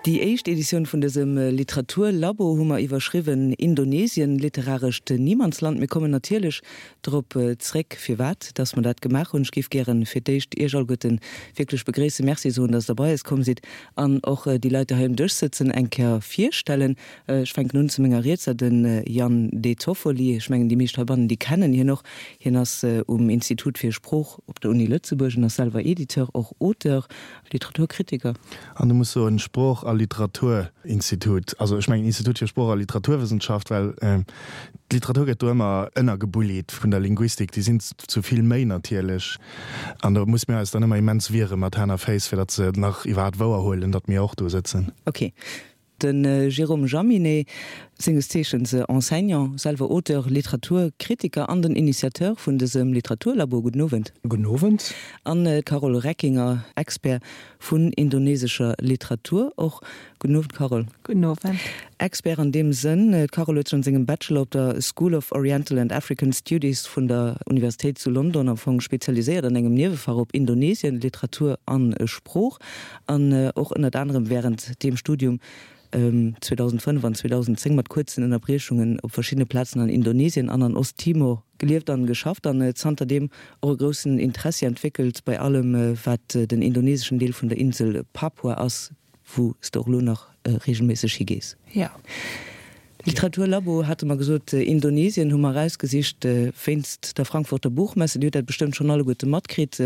Déi éischt Editioun vun dësem Literaturlabo hu mer iwwerschriwwen Indonesien, literarescht Niemandsland. Mir kommen natierlech drop zréck, firwat dass mer dat gemaach hunn. Ech géif gären fir d'éischt Iech alleguerten wierklech begréissen, Merci soen, dass Der bei eis komm sidd an och déi Leit, déi hei um Dësch sëtzen, eng Kéier virstellen. Ech fänken un zu menger Rietser, de Yann De Toffoli. Ech mengen, déi meescht heibannen, déi kennen hien och. Hien ass um Institut fir Sprooch op der Uni Lëtzebuerg en ass selwer Editeur, och Auteur, Literaturkritiker. An du muss soen, Sprooch a Literaturinstitut. Also ech mengen Institut fir Sprooch a Literaturwëssenschaft, well d'Literatur gëtt do ëmmer ënnergebullied vun der Linguistik. Déi sinn zu vill méi natierlech. An do muss mir eis dann ëmmer immens wiere mat Hänn a Féiss, fir datt se nach iwwerhaapt wouerhuelen, datt mir och do sëtzen. Ok. De Jérôme Jaminet, senges Zeechens Enseignant, selwer Auteur, Literaturkritiker an den Initiateur vun dësem Literaturlabo. Gudden Owend. Gudden Owend. An d'Carole Reckinger, Expert vun indonesescher Literatur och. Gudden Owend, Carole. Gudden Owend. Expert an deem Sënn, d'Carole huet sech an sengem Bachelor op der School of Oriental and African Studies vun der Universitéit zu London am Fong spezialiséiert an engem Niewefach op Indonesien, Literatur an Sprooch. An och ënnert anerem wärend deem Studium 2005 an 2010 mat kuerzen Ënnerbriechungen op verschiddene Plazen an Indonesien an an Ost-Timor gelieft an geschafft an zanterdeem och e groussen Interessi entwéckelt bei allem wat den indoneseschen Deel vun der Insel Papua ass, wou s de och elo nach reegelméisseg higees. Jo. Literaturlabo hate mer gesot, Indonesien hu mer erausgesicht wéinst der Frankfurter Buchmesse. Dir hutt dat bestëmmt schonn alleguerte matkritt.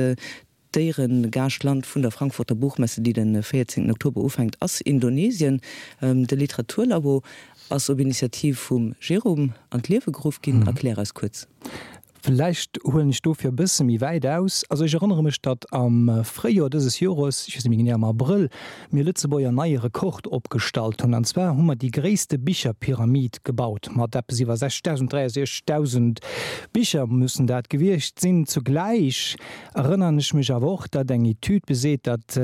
D'Éieregaaschtland vun der Frankfurter Buchmesse, déi de 14 Oktober ufänkt, ass Indonesien. De Literaturlabo ass op Initiativ vum Jérôme an d'Liewe geruff ginn. Erklär eis kuerz. Vläicht huelen ech dofir e bësse méi wäit aus. Also ech erënnere mech, datt am Fréijoer dëses Jores, ech weess net méi genee, am Abrëll, mir Lëtzebuerger en neie Rekord opgestallt hunn. An zwar hu mer déi gréisste Bicherpyramid gebaut, mat eppes iwwer 60.000, 63.000 Bicher mussen dat gewiescht sinn. Zugläich Erënnern ech mech awer och, datt eng Etüd beseet, datt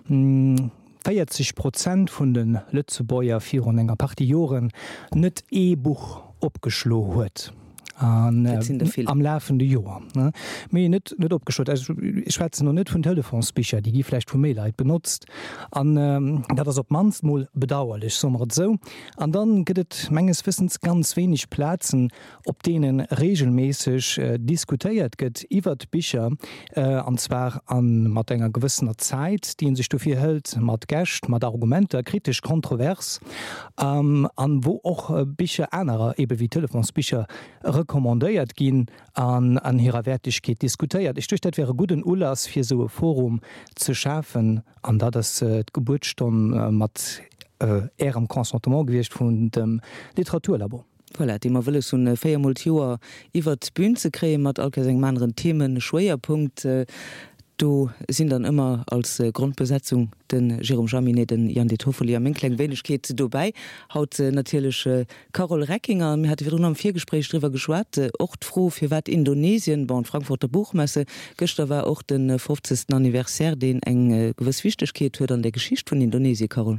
40 Prozent vun de Lëtzebuerger virun enger Partie Joren net ee Buch opgeschlo huet am lafende Joer. Mee net net opgeschloen. Also ech schwätzen elo net vun Telefonsbicher, déi gi vläicht vu méi Leit benotzt. An dat ass op d'mannst mol bedauerlech, soe mer et esou. An dann gëtt et menges Wëssens ganz wéineg Plazen, op deene reegelméisseg diskutéiert gëtt iwwert Bicher, an zwar a mat enger gewëssener Zäit, déi ee sech dofir hëlt, mat Gäscht, mat Argumenter, kritesch, kontrovers, an wou och Bicher anerer, ebe wéi Telefonsbicher, recommandéiert ginn an an hirer Wäertegkeet diskutéiert. Ech duecht, dat wär e gudden Ulass, fir esou e Forum ze schafen, an dat ass d'Gebuertsstonn mat Ärem Consentement gewiescht vun dem Literaturlabo. Voilà, déi mer wëlles hunn, véiermol d'Joer iwwert d'Bün ze kréien, mat all Kéiers engem aneren Themeschwéierpunkt. Do sinn dann ëmmer als Grondbesetzung de Jérôme Jaminet, de Yann De Toffoli a meng kleng Wéinegkeet dobäi. Haut natierlech d'Carole Reckinger. Mir hate virdrun am Virgespréich driwwer geschwat, och d'Fro, firwat Indonesien, bon, d'Frankfurter Buchmesse, gëschter war och de fofzegsten Anniversaire, deen eng gewëss Wichtegkeet huet an der Geschicht vun Indonesien, Carole.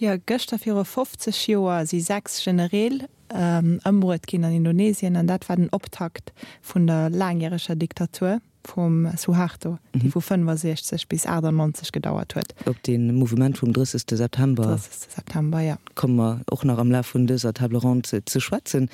Jo, gëschter viru 50 Joer si 6 Genereel ëmbruet ginn an Indonesien an dat war den Optakt vun der laangjäreger Diktatur vum Suharto, déi vu 65 bis 98 gedauert huet. Op dee Mouvement vum 30. September. 30. September, jo. Komme mer och nach am Laf vun dëser Table ronde ze schwätzen.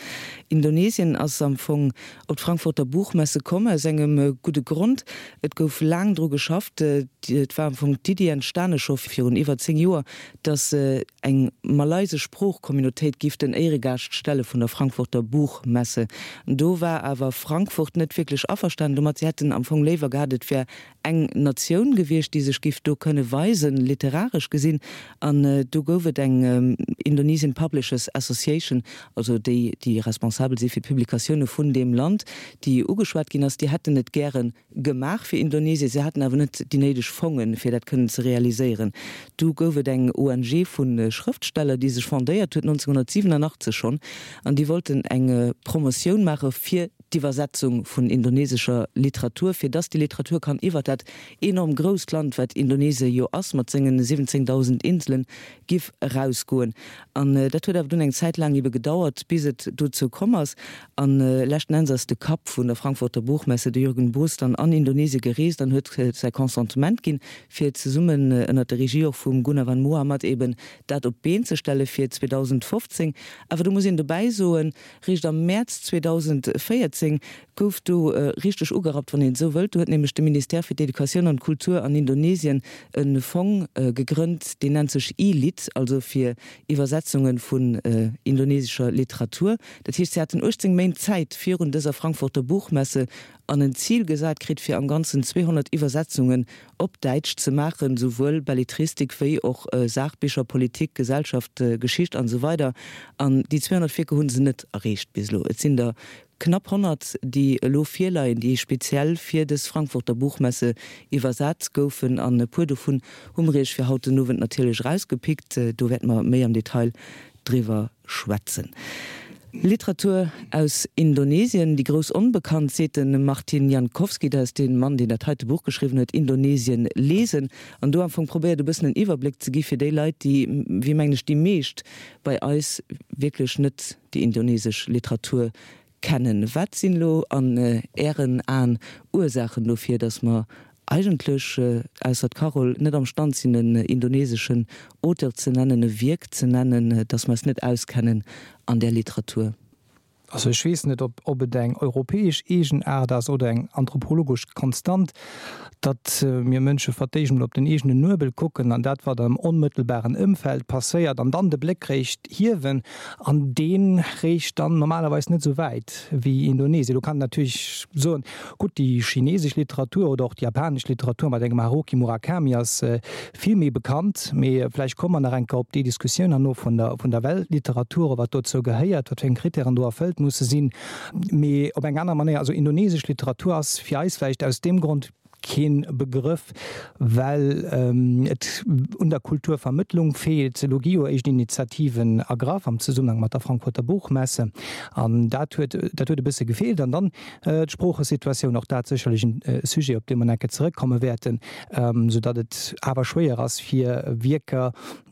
Indonesien ass am Fong op d'Frankfurter Buchmesse komm aus engem gudde Grond. Et gouf laang dru geschafft. Et war am Fong d'Iddi entstane scho virun iwwer 10 Joer, datt eng malaysesch Sproochcommunautéit giff den Éieregaascht stelle vun der Frankfurter Buchmesse. Do war awer Frankfurt net wierklech averstanen domat. Si hätten am Fong léiwer gehat, et wär eng Natioun gewiescht, déi sech giff do kënne weisen, literaresch gesinn. An do gouf et eng Indonesian Publishers Association, also déi, déi responsabel si fir d'Publikatioune vun deem Land, déi ugeschwat ginn ass. Déi hätten et gäre gemaach fir Indonesien, se haten awer net déi néideg Fongen, fir dat kënnen ze realiséieren. Du gouf et eng ONG vu Schrëftsteller, déi sech fondéiert huet 1987 schonn, an déi wollten eng Promotioun maache fir. d'Iwwersetzung vun indonesescher Literatur, fir dass déi Literatur kann iwwert dat enorm grousst Land, wat Indonesie jo ass, mat sengen 17.000 Inselen, giff erausgoen. An dat huet awer dunn eng Zäit laang ebe gedauert, bis et dozou komm ass. A leschten Enns ass de Kapp vun der Frankfurter Buchmesse, de Jürgen Boos, dann an Indonesie gereest an huet säi Consentement ginn, fir zesummen ënnert der Regie och vum Goenawan Mohamad eben dat op d'Been ze stelle fir 2015. Awer do muss een dobäi soen, Réischt am Mäerz 2014 gouf do richteg ugerappt, wann een esou wëllt. Do huet nämlech de Ministère fir d'Educatioun an d'Kultur an Indonesien e Fong gegrënnt, deen nennt sech E-Lit, also fir Iwwersetzunge vun indonesescher Literatur. Dat heescht, si haten 18 Méint Zäit virun dëser Frankfurter Buchmesse an en Zil gesat kritt, fir am Ganzen 200 Iwwersetzungen op Däitsch ze maachen, souwuel Belletristik wéi och Saachbicher, Politik, Gesellschaft, Geschicht an esou weider. An déi 200 Wierker hu se net erreecht bis elo. Et sinn der knapp 100, déi elo virleien, déi speziell fir dës Frankfurter Buchmesse iwwersat goufen. An e puer dovun hu mer Iech fir haut den Owend natierlech erausgepickt. Do wäerte mer méi am Detail driwwer schwätzen. Literatur aus Indonesien, déi grouss Onbekannt, seet de Martin Jankowski, dat ass dee Mann, deen dat heite Buch geschriwwen huet, Indonesien lesen, an do am Fong probéiert e bëssen en Iwwerbléck ze gi fir déi Leit, déi, wéi mengen ech déi meescht bei eis, wierklech net déi indonesesch Literatur kennen. Wat sinn elo an Ären Aen Ursaachen dofir, datt mer eigentlech, ausser d'Carole, net am Stand sinn en indoneseschen Auteur ze nennen, e Wierk ze nennen, datt mer eis net auskennen an där Literatur? Also ech weess net, ob ob et eng europäesch Eegenaart ass oder eng anthropologesch Konstant, datt mir Mënsche fir d'éischt emol op den eegenen Nuebel kucken an dat, wat am onmëttelbaren Ëmfeld passéiert, an dann de Bléck réischt hiewen. An dee reecht dann normalerweis net esou wäit wéi Indonesien. Do kann een natierlech soen, gutt, déi chinesesch Literatur oder och déi japanesch Literatur mat engem Haruki Murakami ass vill méi bekannt. Mee vläicht komme mer nach eng Kéier op déi Diskussioun herno vun der, vun der Weltliteratur, wat dozou gehéiert, wat fir eng Kritären do erfëllt musse sinn. Mee op eng aner Manéier, also indonesesch Literatur ass fir eis vläicht aus deem Grond keen Begrëff, well et un der Kulturvermëttlung feelt. Elo gi jo éischt Initiativen ergraff am Zesummenhang mat der Frankfurter Buchmesse, an dat huet dat huet e bësse gefeelt. An dann d'Sproochesituatioun, och dat sécherlech e Sujet, op dee mer nach eng Kéier zeréckkomme wäerten, soudatt et awer schwéier ass, fir Wierker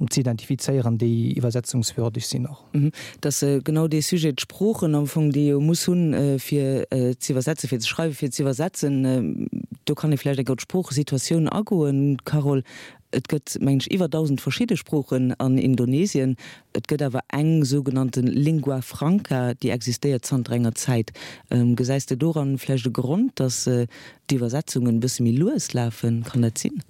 ze identifizéieren, déi iwwersetzungswürdeg sinn och. Et ass genau dee Sujet, d'Sproochen am Fong, déi ee jo muss hunn, fir ze iwwersetzen, fir ze schreiwen, fir ze iwwersetzen. Do kann ee vläicht eng Kéier op d'Sproochesituatioun agoen, Carole. Et gëtt, mengen ech, iwwer 1.000 verschidde Sproochen an Indonesien. Et gëtt awer eng sougenannte Lingua franca, déi existéiert zanter enger Zäit. Gesäis de doran vläicht e Grond, datt d'Iwwersetzungen e bësse méi lues lafen? Kann dat sinn?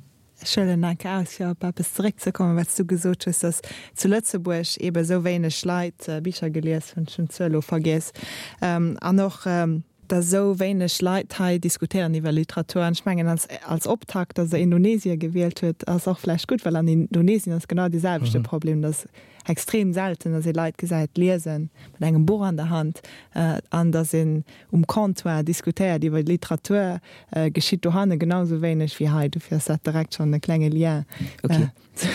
Ech huelen enk aus, fir op eppes zeréckzekommen, wat s du gesot hues, dass zu Lëtzebuerg eebe esou wéineg Leit Bicher gelies hunn, ech hunn d'Zuel elo vergiess, an och, dass esou wéineg Leit hei diskutéieren iwwer Literatur. An ech mengen, als, als Optakt, dass Der Indonesien gewielt huet, ass och vläicht gutt, well an Indonesien ass genau dee selwechte Problem, dass extrem selten, dass ee Leit gesäit liesen mat engem Buch an der Hand an dass een um Comptoir diskutéiert iwwer Literatur, geschitt dohanne genau esou wéineg wéi hei. Dofir ass dat direkt schonn e klenge Lien zu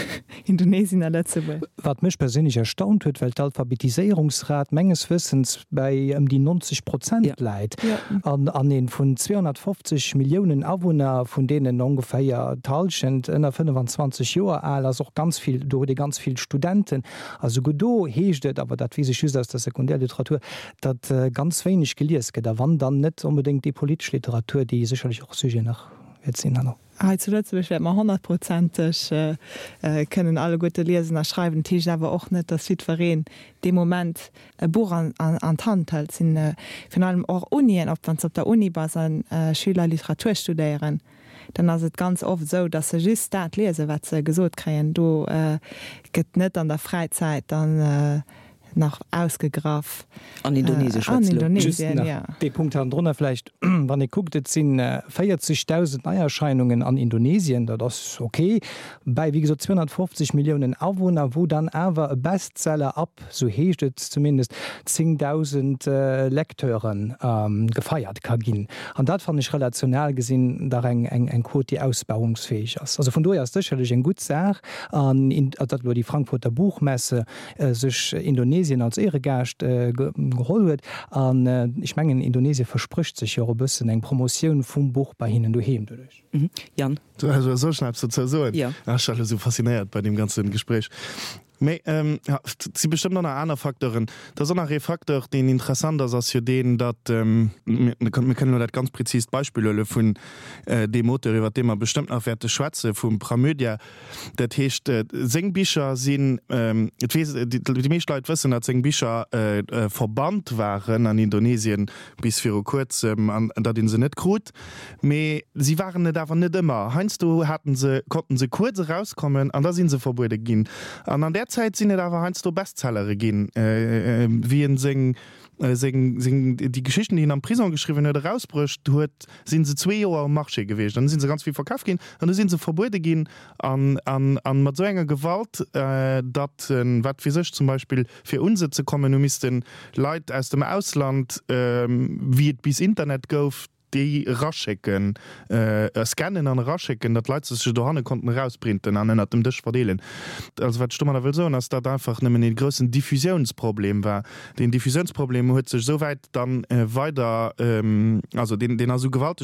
Indonesien a Lëtzebuerg. Wat mech perséinlech erstaunt huet, well d'Alphabetiséierungsrat menges Wëssens bäi ëm déi 90 Prozent läit an an ee vun 250 Milliounen Awunner, vun deenen ongeféier d'Hallschent ënner 25 Joer al ass, och ganz vill, do huet ee ganz vill Studenten a souguer do heescht et, awer dat weess ech just aus der Sekundärliteratur, datt ganz wéineg gelies gëtt, a wann, dann net onbedéngt déi politesch Literatur, déi sécherlech och Sujet nach wäert sinn herno. Hei zu Lëtzebuerg wäerte mer honnertprozenteg kënnen alleguerte liesen a schreiwen. Dat heescht awer och net, datt jiddwereen dee Moment e Buch an d'Hand hëlt. Et sinn virun allem och Unien, ob wann s de op der Uni bass a Schüler Literatur studéieren, dann ass et ganz oft esou, datt se just dat liesen, wat se gesot kréien. Do gëtt net an der Fräizäit dann nach ausgegraff. An Indonesien schwätzt elo. Just nach dee Punkt hannendrunner vläicht, wann ee kuckt, et si 40.000 Neierscheinungen an Indonesien, dat ass ok, bäi wéi gesot 250 Milliounen Awunner, wou dann awer e Bestseller ab, sou heescht et zumindest, 10.000 Lecteure gefeiert ka ginn. An dat fannen ech relational gesinn dach eng Quot, déi ausbauungsfäeg ass. Also vun dohier ass sécherlech eng gutt Saach, an datt elo déi Frankfurter Buchmesse sech Indonesien. Indonesien als Éieregaascht geholl huet. An ech mengen, Indonesien versprécht sech jo och e bëssen eng Promotioun vum Buch bei hinnen doheem doduerch. Yann? Soll ech nach eppes dozou soen? Jo. Ech war elo esou faszinéiert bei deem ganze Gespréich. Mee et si bestëmmt och nach aner Facteuren. Et ass och nach ee Facteur, deen interessant ass, ass jo deen, datt, mir kënnen elo dat ganz präzist Beispill huele vun deem Auteur, iwwert dee mer bestëmmt nach wäerte schwätzen, vum Pramudya. Dat heescht, seng Bicher sinn, et weess, déi meescht Leit wëssen, datt seng Bicher verbannt waren an Indonesien bis viru kuerzem an datt ee se net krut. Mee si waren et awer net ëmmer. Heiansdo haten se, konnten se kuerz erauskommen an da si se verbuede ginn. An an där Zäit sinn et awer heiansdo Bestsellere ginn, wéi en seng, seng, seng, déi Geschichten, déi en am Prisong geschriwwen huet, erausbruecht huet, si se zwee Joer um Marché gewiescht. An du si se ganz vill verkaf ginn an du si se verbuede ginn an, an, an mat esou enger Gewalt, datt, wat weess ech, zum Beispill fir un se ze kommen, hu misste Leit aus dem Ausland, wéi et bis Internet gouf, déi eraschécken, scannen an eraschécken, datt d'Leit se sech dohanne konnten erausprinten an ënnert dem Dësch verdeelen. Also wat ech domadder wëll soen, ass, datt einfach nëmmen ee groussen Diffusiounsproblem war. Deen Diffusiounsproblem huet sech esou wäit dann weider, also deen, deen ass esou gewalteg.